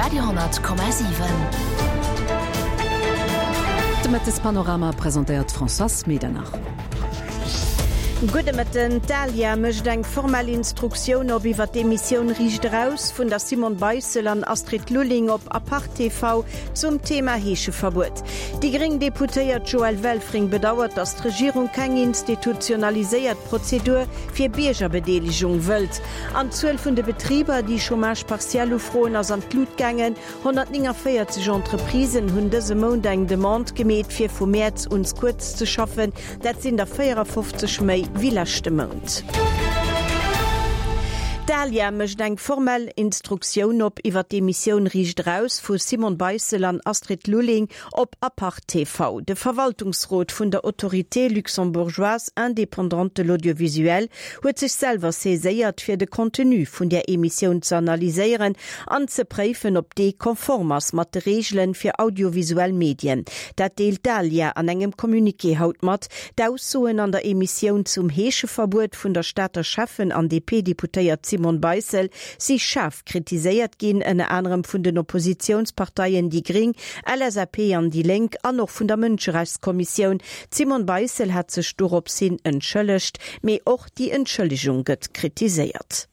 Radio 10,7. De Mëttespanorama presentéiert d'Françoise Medernach. Gudde Mëtten. D'ALIA mécht eng formell Instruktioun op iwwer d'Emissioun Riicht Eraus vun der Simone Beissel an Astrid Lulling op Apart TV zum Thema Heescheverbuet. Déi gréng Deputéiert Joëlle Welfring bedauert, datt d'Regierung keng institutionaliséiert Prozedur fir Biergerbedeelegung wëllt. An d'Zuel vun de Betriber, déi Chômage partiel ufroen, ass an d'Lut gaangen. 149 Entreprisen hunn dëse Mount eng Demande gemeet, fir vu Mäerz un kuerz ze schaffen. Dat sinn der 54 méi wéi leschte Mount. D'ALIA mécht eng formell Instruktioun op iwwer d'Emissioun Riicht Eraus vu Simone Beissel an Astrid Lulling op Apart TV. De Verwaltungsrot vun der Autorité luxembourgeoise indépendante de l'audiovisuel huet sech selwer saiséiert, fir de Contenu vun där Emissioun ze analyséieren an ze préifen, ob dee konform ass mat de Reegele fir audiovisuell Medien. Dat deelt d'ALIA an engem Communiqué haut mat. D'Aussoen an der Emissioun zum Heescheverbuet vun der Stater Schäffen an DP-Deputéiert Simone Beissel si schaarf kritiséiert ginn, ënner anerem vun den Oppositiounsparteien déi gring, LSAP an déi Lénk an och vun der Mënscherechtskommissioun. D'Simone Beissel hat sech dorops hin entschëllegt, mee och déi Entschëllegung gëtt kritiséiert.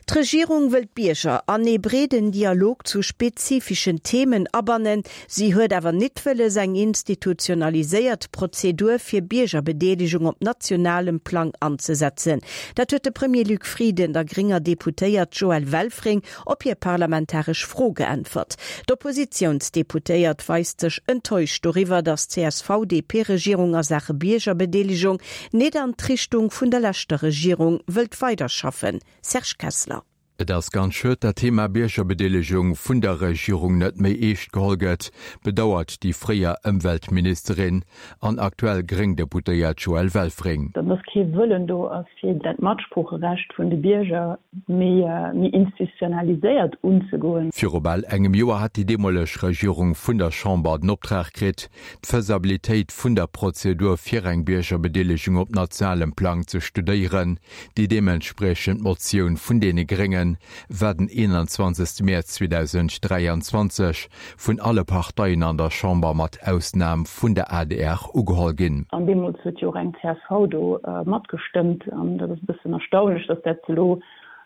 D'Regierung wëll d'Bierger an ee breeden Dialog zu spezifischen Themen abannen. Si huet awer nit wëlles, eng institutionaliséiert Prozedur fir Biergerbedeelegung op nationalem Plang anzesetzen. Dat huet de Premier Luc Frieden der grénger Deputéiert Joëlle Welfring op hir parlamentaresch Fro geäntwert. D'Oppositiounsdeputéiert weist sech enttäuscht doriwwer, datt d'CSV-DP-Regierung a Saache Biergerbedeelegung nit an d'Richtung vun der leschter Regierung wëllt weiderschaffen. Serge Kessler. Et ass ganz schued, dat d'Thema Biergerbedeelegung vun der Regierung net méi eescht geholl gëtt, bedauert déi fréier Ëmweltministerin an aktuell gréng Deputéiert Joëlle Welfring. Datt kee Wëllen do ass, fir dat Matsproocherecht vun de Bierger méi institutionaliséiert unzegoen. Viru bal engem Joer hat déi deemoleg Regierung vun der Chamber den Optrag kritt, d'Faisabilitéit vun der Prozedur fir eng Biergerbedeelegung op nationalem Plang ze studéieren. Déi deementspriechend Motioun vun deene Grénge war den 21 Mäerz 2023 vun alle Parteien an der Chamber mat Ausnam vun der adr ugeholl ginn. An deemools huet jo och eng csv do matgestëmmt. An dat ass e bëssen erstaunlech, datt dat elo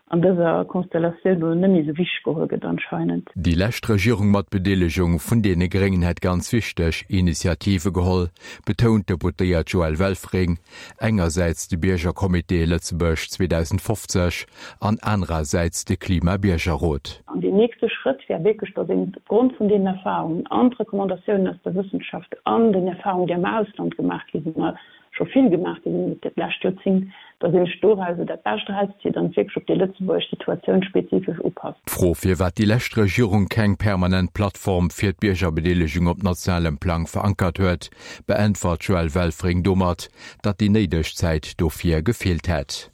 an dëser Konstellatioun elo net méi esou wichteg geholl gëtt anscheinend. Déi lescht Regierung mat Bedeelegung vun deene Gréngen hätt ganz wichteg Initiative geholl, betount d'Deputéiert Joëlle Welfring, Engersäits de Biergercomité Lëtzebuerg 2050 an anerersäits de Klima-Biergerrot. An deen nächste Schrëtt wär wierklech, datt een opgrond vun deenen Erfahrungen an d'Recommandatiounen aus der Wëssenschaft an den Erfahrungen, déi am Ausland gemaach gi sinn, a scho vill gemaach gi sinn iwwert dat lescht Joerzéngt, datt een sech dorauser dat Bescht erauszitt an et wierklech op déi lëtzebuergesch Situatioun spezifesch upasst. D'Fro, firwat déi lescht Regierung keng permanent Plattform fir d'Biergerbedeelegung op nationalem Plang verankert huet, beäntwert d'Joëlle Welfring domat, datt déi néideg Zäit dofir gefeelt hätt.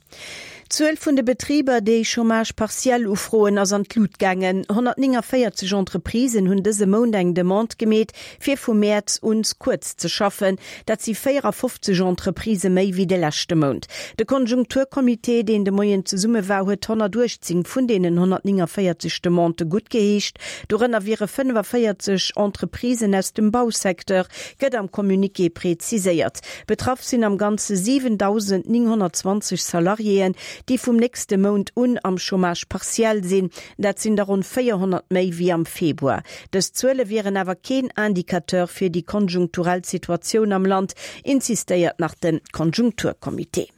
D'Zuel vun de Betriber, déi Chômage partiel ufroen, ass an d'Lut gaangen. 149 Entreprisen hunn dëse Mount eng Demande gemeet, fir vu Mäerz un kuerz ze schaffen. Dat si 54 Entreprisë méi wéi de leschte Mount. De Konjunkturcomité, deen de Moien zesumme war, huet 118 vun deenen 149 Demandë guttgeheescht. Dorënner wiere 45 Entreprisen aus dem Bausecteur, gëtt am Communiqué preziséiert. Betraff sinn am Ganze 7.920 Salariéen, déi vum nächste Mount un am Chômage partiel sinn. Dat sinn der ronn 400 méi wéi am Februar. Dës Zuele wieren awer keen Indicateur fir déi konjunkturell Situatioun am Land, insistéiert nach de Konjunkturcomité.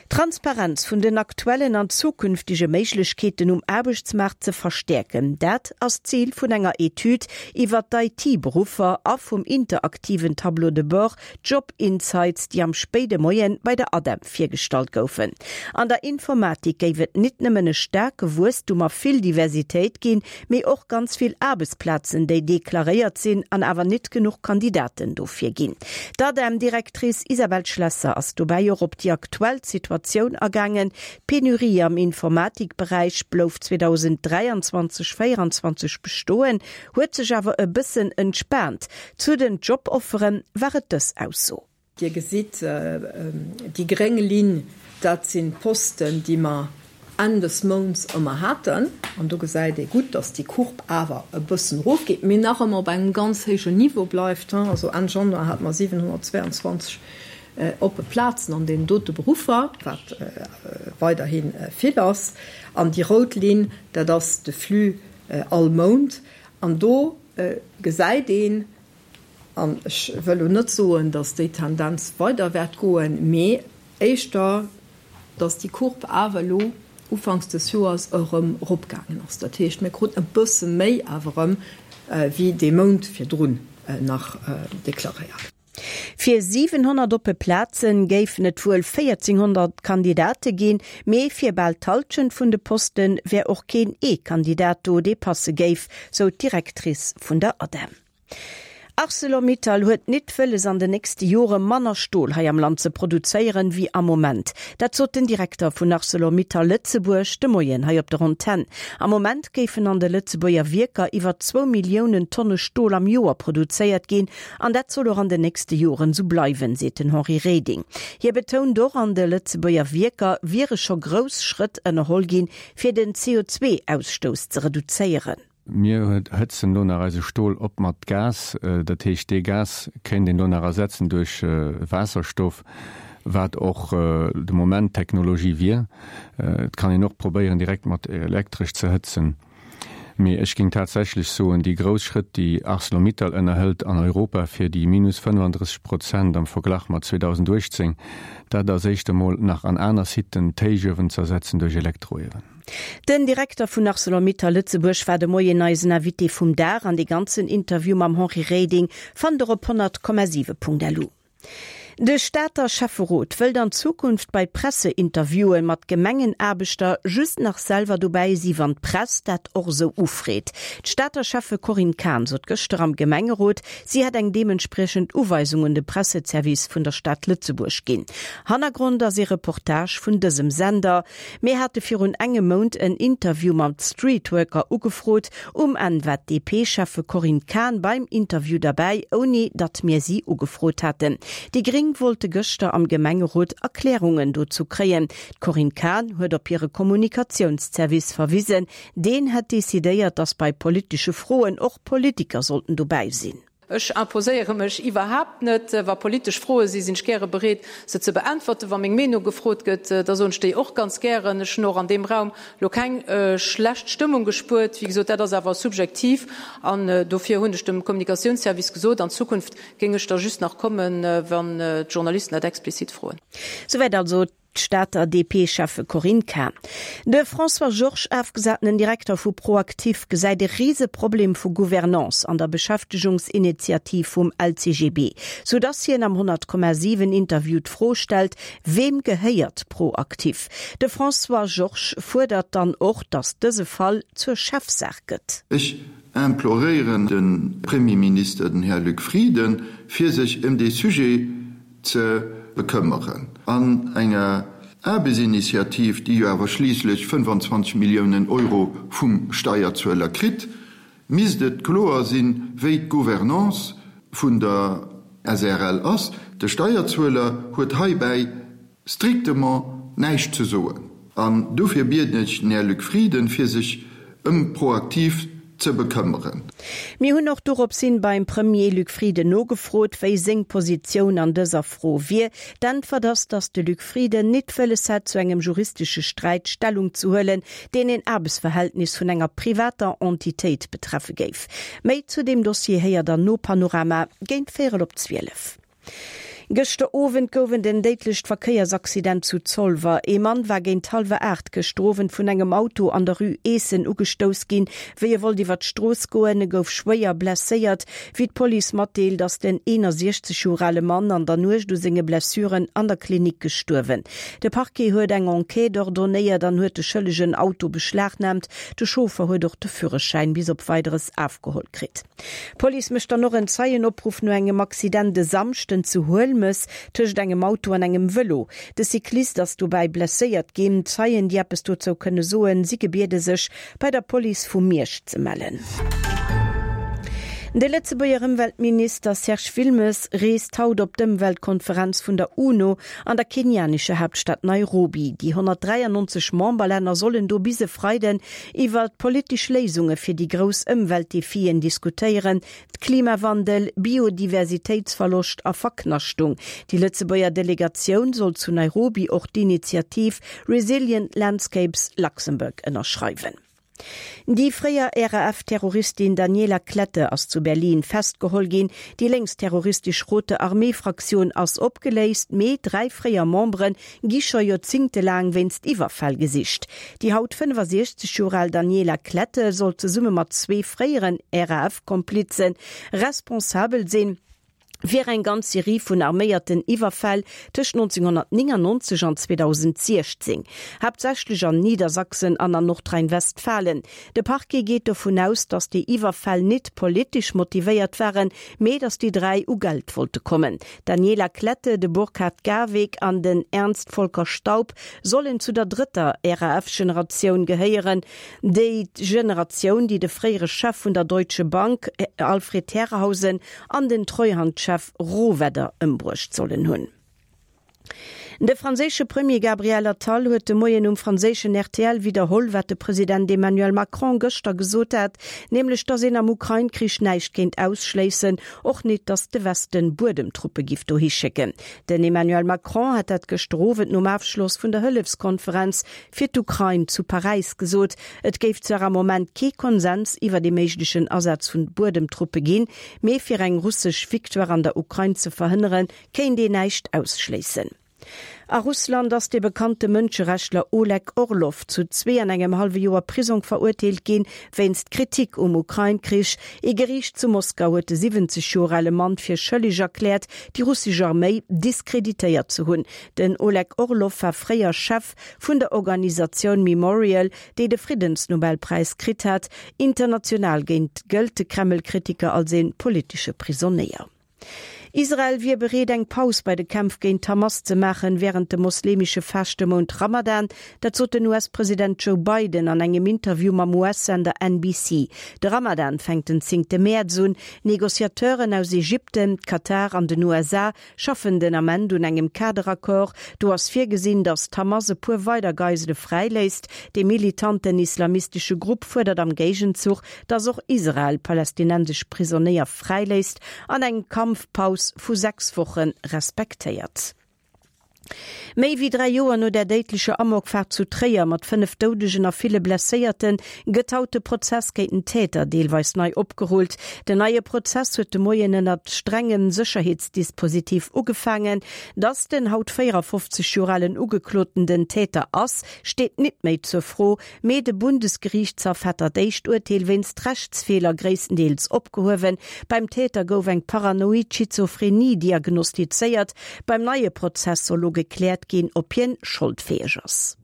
D'Transparenz vun den aktuellen an zukünftege Méiglechkeeten um Aarbechtsmaart ze verstäerken, dat ass d'Zil vun enger Etüd iwwer d'IT-Beruffer a vum interaktiven Tableau de bord Job Insights, déi am spéide Moien bei der ADEM virgestallt goufen. An der Informatik géif et nit nëmmen e staarke Wuesstum a vill Diversitéit ginn, mee och ganz vill Aarbechtsplazen, déi deklaréiert sinn an awer nit genuch Kandidaten dofir ginn. D'ADEM-Directrice Isabelle Schlesser ass dobäi och op déi aktuell Situatioun agaangen. D'Penurie am Informatikberäich blouf 2023, 24 bestoen, huet sech awer e bëssen entspaant. Zu den Joboffere war et dës Ausso. Dir gesitt, déi gréng Linn, dat sinn d'Posten, déi mer. Enn des Mounts ëmmer haten. An do gesäit ee gutt, dass déi Courbe awer e bëssen erofgeet, mee nach ëmmer op engem ganz héijen Niveau bleift. Also Enn Januar hate mer 722 oppe Plazen an deenen dote Beruffer, wat weiderhi vill ass. An déi rout Linn, dat ass de Flux all Mount. An do gesäit een, an ech wëll elo net soen, dass déi Tendenz weider wäert goen, mee éischter, dass déi Courbe awer elo ufanks des Joers erëm eropgaangen ass. Dat heescht, mir kruten e bësse méi awer erëm wéi dee Mount virdrun nach deklaréiert. Fir 700 oppe Plaze géifen et wuel 1.400 Kandidate ginn, mee fir bal d'Hallschent vun de Poste wär och keen ee Kandidat do, dee passe géif, sou d'Directrice vun der ADEM. Arcelor-Mittal huet nit wëlles an de nächste Jore manner Stol hei am Land ze produzéieren wéi am Moment. Dat sot den Direkter vun Arcelor-Mittal Lëtzebuerg de Moien hei op der Antenn. Am Moment géifen an de Lëtzebuerger Wierker iwwer zwou Milliounen Tonne Stol am Joer produzéiert ginn an dat soll och an de nächste Joren esou bleiwen, seet den Henri Reding. Hie betount och, an de Lëtzebuerger Wierker wiere scho grouss Schrëtt ënnerholl ginn, fir den CO2-Ausstouss ze reduzéieren. Mir hëtzen elo nach eise Stol op mat Gas. Dat heescht, dee Gas kéint een elo nach ersetzen duerch Waasserstoff, wat och de Moment d'Technologie wier. Et kann een och probéieren, direkt mat Elektresch ze hëtzen. Mee ech géing tatsächlech soen, déi grouss Schrëtt, déi Arcelor-Mittal ënnerhëlt an Europa fir déi minus 35 Prozent am Verglach mat 2018, dat ass éischt emol nach an aner Siten d'Héichuewen z'ersetzen duerch Elektroiewen. Den Direkter vun Arcelor-Mittal Lëtzebuerg war de Moien eisen Invité vum Dag an dee ganzen Interview mam Henri Reding fannt der op 100,7.lu. De Stater Schäfferot wëllt an Zukunft bei Presseinterviewen mat Gemengenaarbechter just nach selwer dobäi si wann d'Press dat och esou ufreet. D'Stater Schäffe Corinne Cahen sot gëschter am Gemengerot, si hätt eng deementspriechend Uweisung un de Presseservice vun der Stad Lëtzebuerg ginn. Hannergrond ass ee Reportage vun dësem Sender. Mir hate virun engem Mount en Interview mam Streetworker ugefrot. Um Enn war d'DP-Schäffe Corinne Cahen beim Interview derbäi, ouni datt mir si ugefrot haten. Déi Gréng wollte gëschter am Gemengerot Erklärungen dozou kréien. D'Corinne Cahen huet op hire Kommunikatiounszervice verwisen. Deen hätt decidéiert, datt bei politesche Froen och Politiker sollten dobäi sinn. Ech imposéiere mech iwwerhaapt net. Wa politesch Froe sinn, sinn ech gäre bereet, se ze beäntwerten. Wa meng Meenung gefrot gëtt, da soen ech déi och ganz gären. Ech hunn och an deem Raum elo keng schlecht Stëmmung gespuert. Wéi gesot, dat ass awer subjektiv an dofir hunn ech dem Kommunikatiounsservice gesot, an Zukunft géing ech da just nach kommen, wann d'Journalisten dat explizit froen. Souwäit also D'Stater DP-Schäffe Corinne Cahen. De François Georges, afgesatenen Direkter vu ProActif, gesäit e Riseproblem vu Gouvernance an der Beschäftegungsinitiativ vum LCGB, sou dass hien am 100,7 Interview d'Fro stellt, Weem gehéiert ProActif? De François Georges fuerdert dann och, dass dëse Fall zur Chefsaach gëtt. Ech imploréieren de Premierminister, den Här Luc Frieden, fir sech ëm dee Sujet ze bekëmmeren. An enger Aarbechtsinitiativ, déi jo awer schliisslech 25 Milliounen Euro vum Steierzueler kritt, misst et kloer sinn, wéi d'Gouvernance vun der SREL ass. De Steierzueler huet heibäi strictement näischt ze soen. An dofir bieden ech den Här Luc Frieden, fir sech ëm ProActif ze bekëmmeren. Mir hunn och doropshin beim Premier Luc Frieden nogefrot, wéi seng Positioun an dëser Fro wier. D'Äntwert ass, datt de Luc Frieden nit wëlles hätt, zu engem juristesche Sträit Stellung ze huelen, deen een Aarbechtsverhältnis vun enger privater Entitéit betreffe géif. Méi zu deem Dossier héiert der no Panorama géint véierel op 12. Gëschter Owend gouf et en déidlecht Verkéiersaccident zu Zolwer. Ee Mann war géint hallwer 8 gëschter Owend vun engem Auto an der Rue Eessen ugestouss ginn, wéi e wollt iwwer d'Strooss goen. E gouf schwéier blesséiert. Wéi d'Police matdeelt, ass den 61 Joer ale Mann an der Nuecht u senge Blessuren an der Klinik gestuerwen. De Parquet huet eng Enquête ordonéiert an huet de schëllegen Auto beschlagnaamt. De Chauffer huet och de Führerschäin bis op Weideres afgeholl kritt. D'Police mécht dann och en Zeienopruff no engem Accident e Samschden zu Huelmes tëscht engem Auto an engem Vëlo. De Cyclist ass dobäi blesséiert ginn. Zeien, déi eppes dozou kënne soen, si gebiede sech bei der Police vu Miersch ze mellen. De Lëtzebuerger Ëmweltminister Serge Wilmes reest haut op d'Ëmweltkonferenz vun der UNO an der kenianescher Haaptstad Nairobi. Déi 193 Memberlänner sollen do bis e Freiden iwwer politesch Léisunge fir déi grouss Ëmweltdefien diskutéieren, Klimawandel, Biodiversitéitsverloscht a Verknaschtung. Déi Lëtzebuerger Delegatioun soll zu Nairobi och d'Initiativ Resilient Landscapes Luxembourg ënnerschreiwen. Déi fréier RAF-Terroristin Daniela Klette ass zu Berlin festgeholl ginn. Déi lénksterroristesch Rote Armee-Fraktioun ass opgeléist, mee 3 fréier Membere gi scho joerzéngtelaang wéinst Iwwerfäll gesicht. Déi haut 65 Joer al Daniela Klette soll zesumme mat zwee fréieren RAF-Komplize responsabel sinn fir eng ganz Serie vun arméierten Iwwerfäll tëscht 1999 an 2016, haaptsächlech an Niedersachsen an an Nordrhein-Westfalen. De Parquet geet dovun aus, datt déi Iwwerfäll nit politesch motivéiert waren, mee datt déi 3 u Geld wollte kommen. D'Daniela Klette, de Burkhard Garweg an den Ernst Volker Staub sollen zu der drëtter RAF-Generatioun gehéieren, déi Generatioun, déi de fréiere Chef vun der Deutsche Bank Alfred Herrhausen an den Treuhandchef Rohwedder ëmbruecht sollen hunn. De franséische Premier Gabriel Attal huet de Moien um franséischen rtl widderholl, wat de President Emmanuel Macron gëschter gesot hat, nämlech datt een am Ukrain-Krich näischt kéint ausschléissen, och nit, datt de Westen Buedemtruppe giff dohi schécken. Den Emmanuel Macron hat dat gëschter Owend nom Afschloss vun der Hëllefskonferenz fir d'Ukrain zu Paräis gesot. Et géif zwar am Moment kee Konsens iwwert ee méiglechen Asaz vun Buedemtruppe ginn, mee fir eng russesch Victoire an der Ukrain ze verhënneren, kéint een näischt ausschléissen. A Russland ass de bekannte Mënscherechtler Oleg Orlov zu zwee an engem hallwe Joer Prisong verurteelt ginn, wéinst Kritik um Ukrain-Krich. Ee Geriicht zu Moskau huet de 70 Joer ale Mann fir schëlleg erkläert, déi russesch Arméi diskreditéiert ze hunn. Den Oleg Orlov war fréier Chef vun der Organisatioun Memorial, déi de Friddensnobelpräis kritt hat. International géint gëllt de Kreml-Kritiker als ee politesche Prisonéier. Israel wier bereet eng Paus bei de Kämpf géint d'Hamas ze maachen, wärend dem mosleemesche Faschtemount Ramadan. Dat sot den US-President Joe Biden an engem Interview mam US-Sender NBC. De Ramadan fänkt den zéngte Mäerz un. Negociateuren aus Ägypten, Katar an den USA schaffen den Ament un engem Kaderaccord. Do ass virgesinn, datt d'Hamas e puer weider Geisele fräiléisst. Dee militanten islamistesche Grupp fuerdert am Géigenzuch, datt och Israel palästinensesch Prisonéier fräiléisst an eng Kampfpaus vu 6 Woche respektéiert. Méi wéi 3 Joer no der déidlecher Amokfaart zu Tréier mat 5 Doudegen a ville Blesséierte gëtt haut de Prozess géint den Täter deelweis nei opgerullt. Den neie Prozess huet de Moien ënnert strengem Sécherheetsdispositif ugefaangen. Datt den haut 54 Joer alen Ugekloten den Täter ass, steet nit méi zur Fro. Mee de Bundesgeriichtshaff hat dat éischt Urteel wéinst Rechtsfeeler gréisstendeels opgehuewen. Beim Täter gouf eng paranoid Schizophrenie diagnostizéiert. Beim neie Prozess soll lo gekläert ginn, ob hien scholdfäeg ass.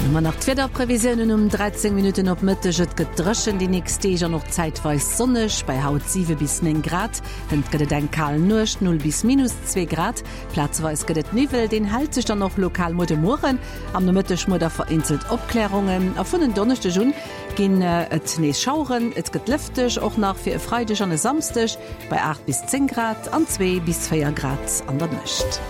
Hu mer nach d'Wiederprevisiounen um 13 Minutten op Mëtteg. Et gëtt dréchen déi nächst Deeg an och zäitweis sonneg, bei haut 7 bis 9 Grad. Hënt gëtt et eng kal Nuecht, 0 bis minus 2 Grad. Plazeweis gëtt et Niwwel, deen hält sech dann och lokal muer de Mueren. Am Nomëtteg muer da vereenzelt Opklärungen a vun en Donneschdeg un ginn et nees Schaueren. Et gëtt lëfteg, och nach fir e Freideg an e Samsdeg, bei 8 bis 10 Grad an 2 bis 4 Grad an der Nuecht.